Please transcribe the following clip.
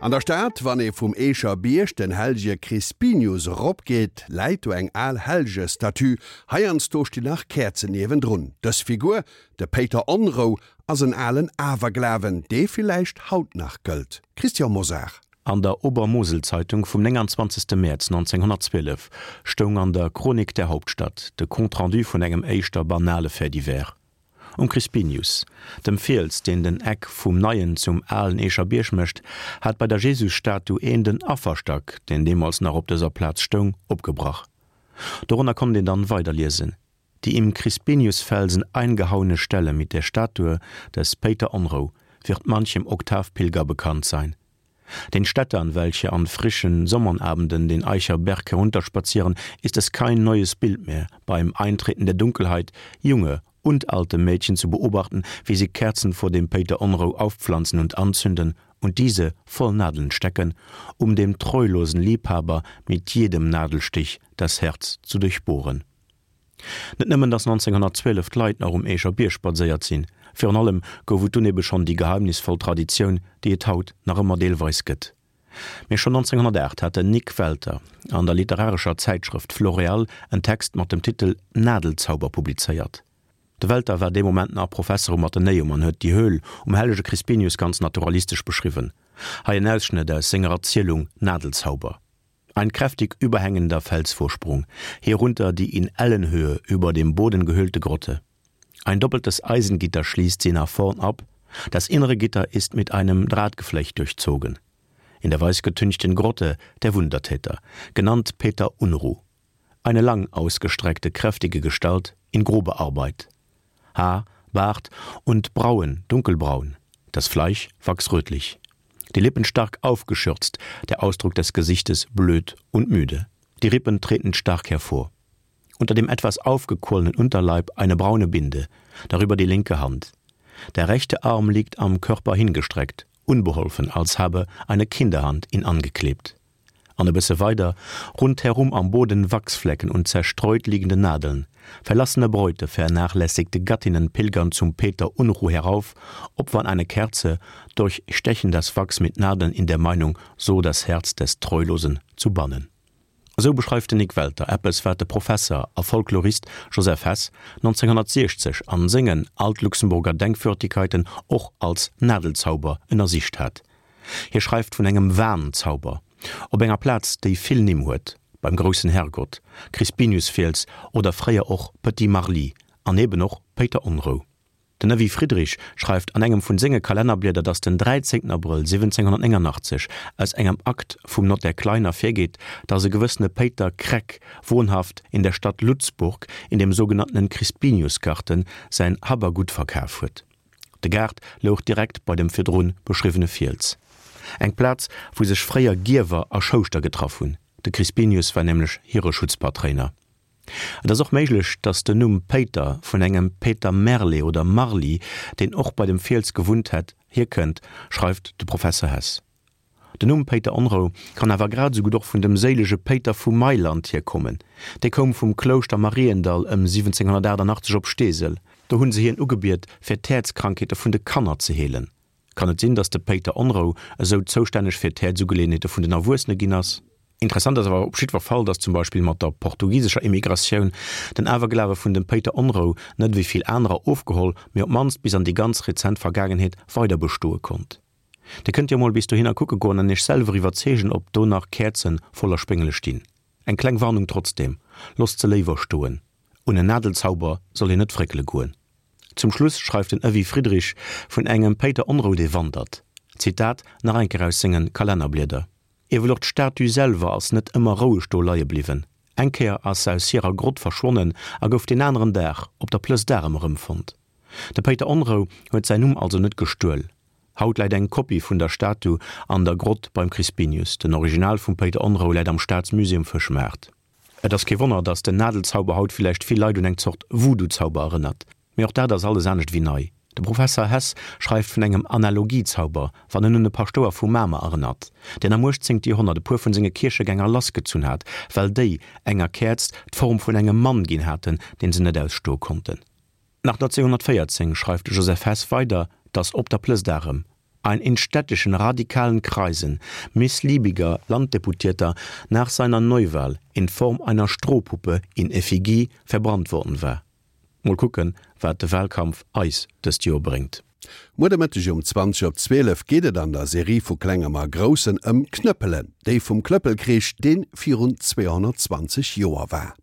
An der Stad, wann ee vum Eecher Bierg den Hellege Crispinius eropgeet, läit do eng al Hellgestatue. Heiansdo stinn nach Käerzen niewendrun. Dës Figur, de Péiter Onrou, ass en alen Awerglawen, dee villäicht haut nach gëllt. Christian Mosar. An der Obermoselzeitung vum 29. Mäerz 1912 stoung an der Chronik der Hauptstadt de Compte-rendu vun engem éischter banale Fait divers. Um Crispinius, dem Fiels, deen den Eck vum neien zum alen Eecher Bierg mécht, hat bei der Jesusstatu een den Afferstack, deen deemools nach op dëser Plaz stoung, opgebrach. Dorënner konnt een dann weider liesen, Die im Crispiniusfelsen eingehauene Stelle mit der Statue des Péiter Onrou wird manchem Oktavpilger bekannt sein. Den Städtern, welche an frischen Sommernabenden den Eicher Berg herunterspazieren, ist es kein neues Bild mehr, beim Eintreten der Dunkelheit junge und alte Mädchen zu beobachten, wie sie Kerzen vor dem Peter Onrou aufpflanzen und anzünden und diese voll Nadeln stecken, um dem treulosen Liebhaber mit jedem Nadelstich das Herz zu durchbohren. Net nëmmen, datt 1912 d'Leit nach um Eecher Bierg spadséiert sinn, virun allem gouf et dunn ebe schonn déi geheimnisvoll Traditioun, déi et haut nach ëmmer deelweis gëtt. Mee schonn 1908 hat den Nik Welter an der literarescher Zäitschrëft Floréal en Text mat dem Titel Nadelzauber publizéiert. De Welter war dee Moment nach Professer um Athenäum an huet déi Höhl um hellege Crispinius ganz naturalistesch beschriwwen. Hei en Ausschnëtt aus senger Erzielung Nadelzauber. Ein kräftig überhängender Felsvorsprung, hierunter die in Ellenhöhe über dem Boden gehöhlte Grotte. Ein doppeltes Eisengitter schließt sie nach vorn ab, das innere Gitter ist mit einem Drahtgeflecht durchzogen. In der weißgetünchten Grotte der Wundertäter, genannt Peter Unruh. Eine lang ausgestreckte, kräftige Gestalt in grober Arbeit. Haar, Bart und Brauen dunkelbraun, das Fleisch wachsrötlich. Die Lippen stark aufgeschürzt, der Ausdruck des Gesichtes blöd und müde. Die Rippen treten stark hervor. Unter dem etwas aufgequollenen Unterleib eine braune Binde, darüber die linke Hand. Der rechte Arm liegt am Körper hingestreckt, unbeholfen, als habe eine Kinderhand ihn angeklebt. An e bësse weider, rundherum am Boden Wachsflecken und zerstreut liegende Nadeln. Verlassene Bräute, vernachlässigte Gattinnen pilgern zum Peter Unruh herauf, opfern eine Kerze, durchstechen das Wachs mit Nadeln in der Meinung, so das Herz des Treulosen zu bannen. Esou beschreift den Nik Welter eppes, wat de Professer a Folklorist Joseph Hess 1960 an sengen Altluxemburger Denkwürdigkeiten och als Nadelzauber ënnersicht hat. Hie schreift vun engem Wahnzauber op enger Plaz, déi vill Nimm huet, beim groussen Herrgott, Crispiniusfiels oder fréier och Petit Marly an eben och Péiter Onrou. Den Evy Friedrich schreift an engem vun senge Kalennerblieder, datt den 13 Abrëll 1789 aus engem Akt vum Notaire Klein ervirgeet, datt e gewëssene Péiter Kreck, wohnhaft in der Stadt Lutzburg in dem sogenannten Crispiniusgarten, säin Hab a Gutt verkaf huet. De Gaart louch direkt bei dem virdrun beschriwwene Fiels. Eng Plaz, wou sech fréier Gierwer a Schouschter getraff hunn. De Crispinius war nämlech hire Schutzpatréiner. Et ass och méiglech, datt den Numm Péiter vun engem Peter Merle oder Marly, deen och bei dem Fiels gewunnt hätt, hierkënnt, schreift de Professer Hess. Den Numm Péiter Onrou kann awer grad esou gutt och vun dem séilege Péiter vu Mailand hierkommen. Dee koum vum Klouschter Mariendall ëm 1788 op Steesel. Do hunn se hien ugebiet, fir d'Häerzkrankheete vun de Kanner ze heelen. Kann et sinn, datt de Péiter Onrou esou zoustänneg fir d'Häerzugeleeënheete vun den Erwuessene ginn ass? Interessant ass awer op jiddwer Fall, datt zum Beispill mat der portugisescher Immigratioun den Awerglawe vun dem Péiter Onrou net ewéi vill anerer ofgeholl, mee op d'mannst bis an déi ganz rezent Vergaangenheet weider bestoe konnt. Dir kënnt jo mol bis dohinner kucke goen an iech selwer iwwerzeegen ob do nach Käerzen voller Spéngele stinn. Eng kleng Warnung trotzdem, losst se léiwer stoen. Un en Nadelzauber soll een net fréckele goen. Zum Schluss schreift den Evy Friedrich vun engem Péiter Onrou dee wandert. Zitat nach eng Kéier aus sengen Kalennerblieder, Ewell och d'Statue selwer ass net ëmmer roueg do leie bliwwen. Eng Kéier ass se aus hirer Grott verschwonnen a gouf deen aneren Dag op der Plëss d'Arem erëmfonnt. De Péiter Onrou huet säin Numm also net gestuel. Haut läit eng Kopie vun der Statu an der Grott beim Crispinius. Den Original vum Péiter Onrou läit am Staatsmusée um Fëschmaart. Et ass kee Wonner, datt den Nadelzauber haut villäicht vill Leit un eng Zort Voodoo-Zauber erënnert. Mee och dat ass alles anescht ewéi nei. De Professer Hess schreift vun engem Analogiezauber, wann en un e Paschtouer vu Mamer erënnert, deen am 18. Joerhonnert e puer vun senge Kierchegänger lassgezunn hat, well déi enger Käerz d'Form vun engem Mann ginn haten, deen se net ausstoe konnten. Nach 1914 schreift de Joseph Hess weider, datt op der Plëss d'Arem. Ein in städtischen radikalen Kreisen missliebiger Landdeputierter nach seiner Neuwahl in Form einer Strohpuppe in Effigie verbrannt worden war. Mol kucken, wat de Wahlkampf eis dëst Joer bréngt. Muer de Mëtteg um 20 op 12 geet et an der Serie vu Klengem a Groussen ëm Knëppelen, déi vum Klëppelkrich, dee virun 220 Joer war.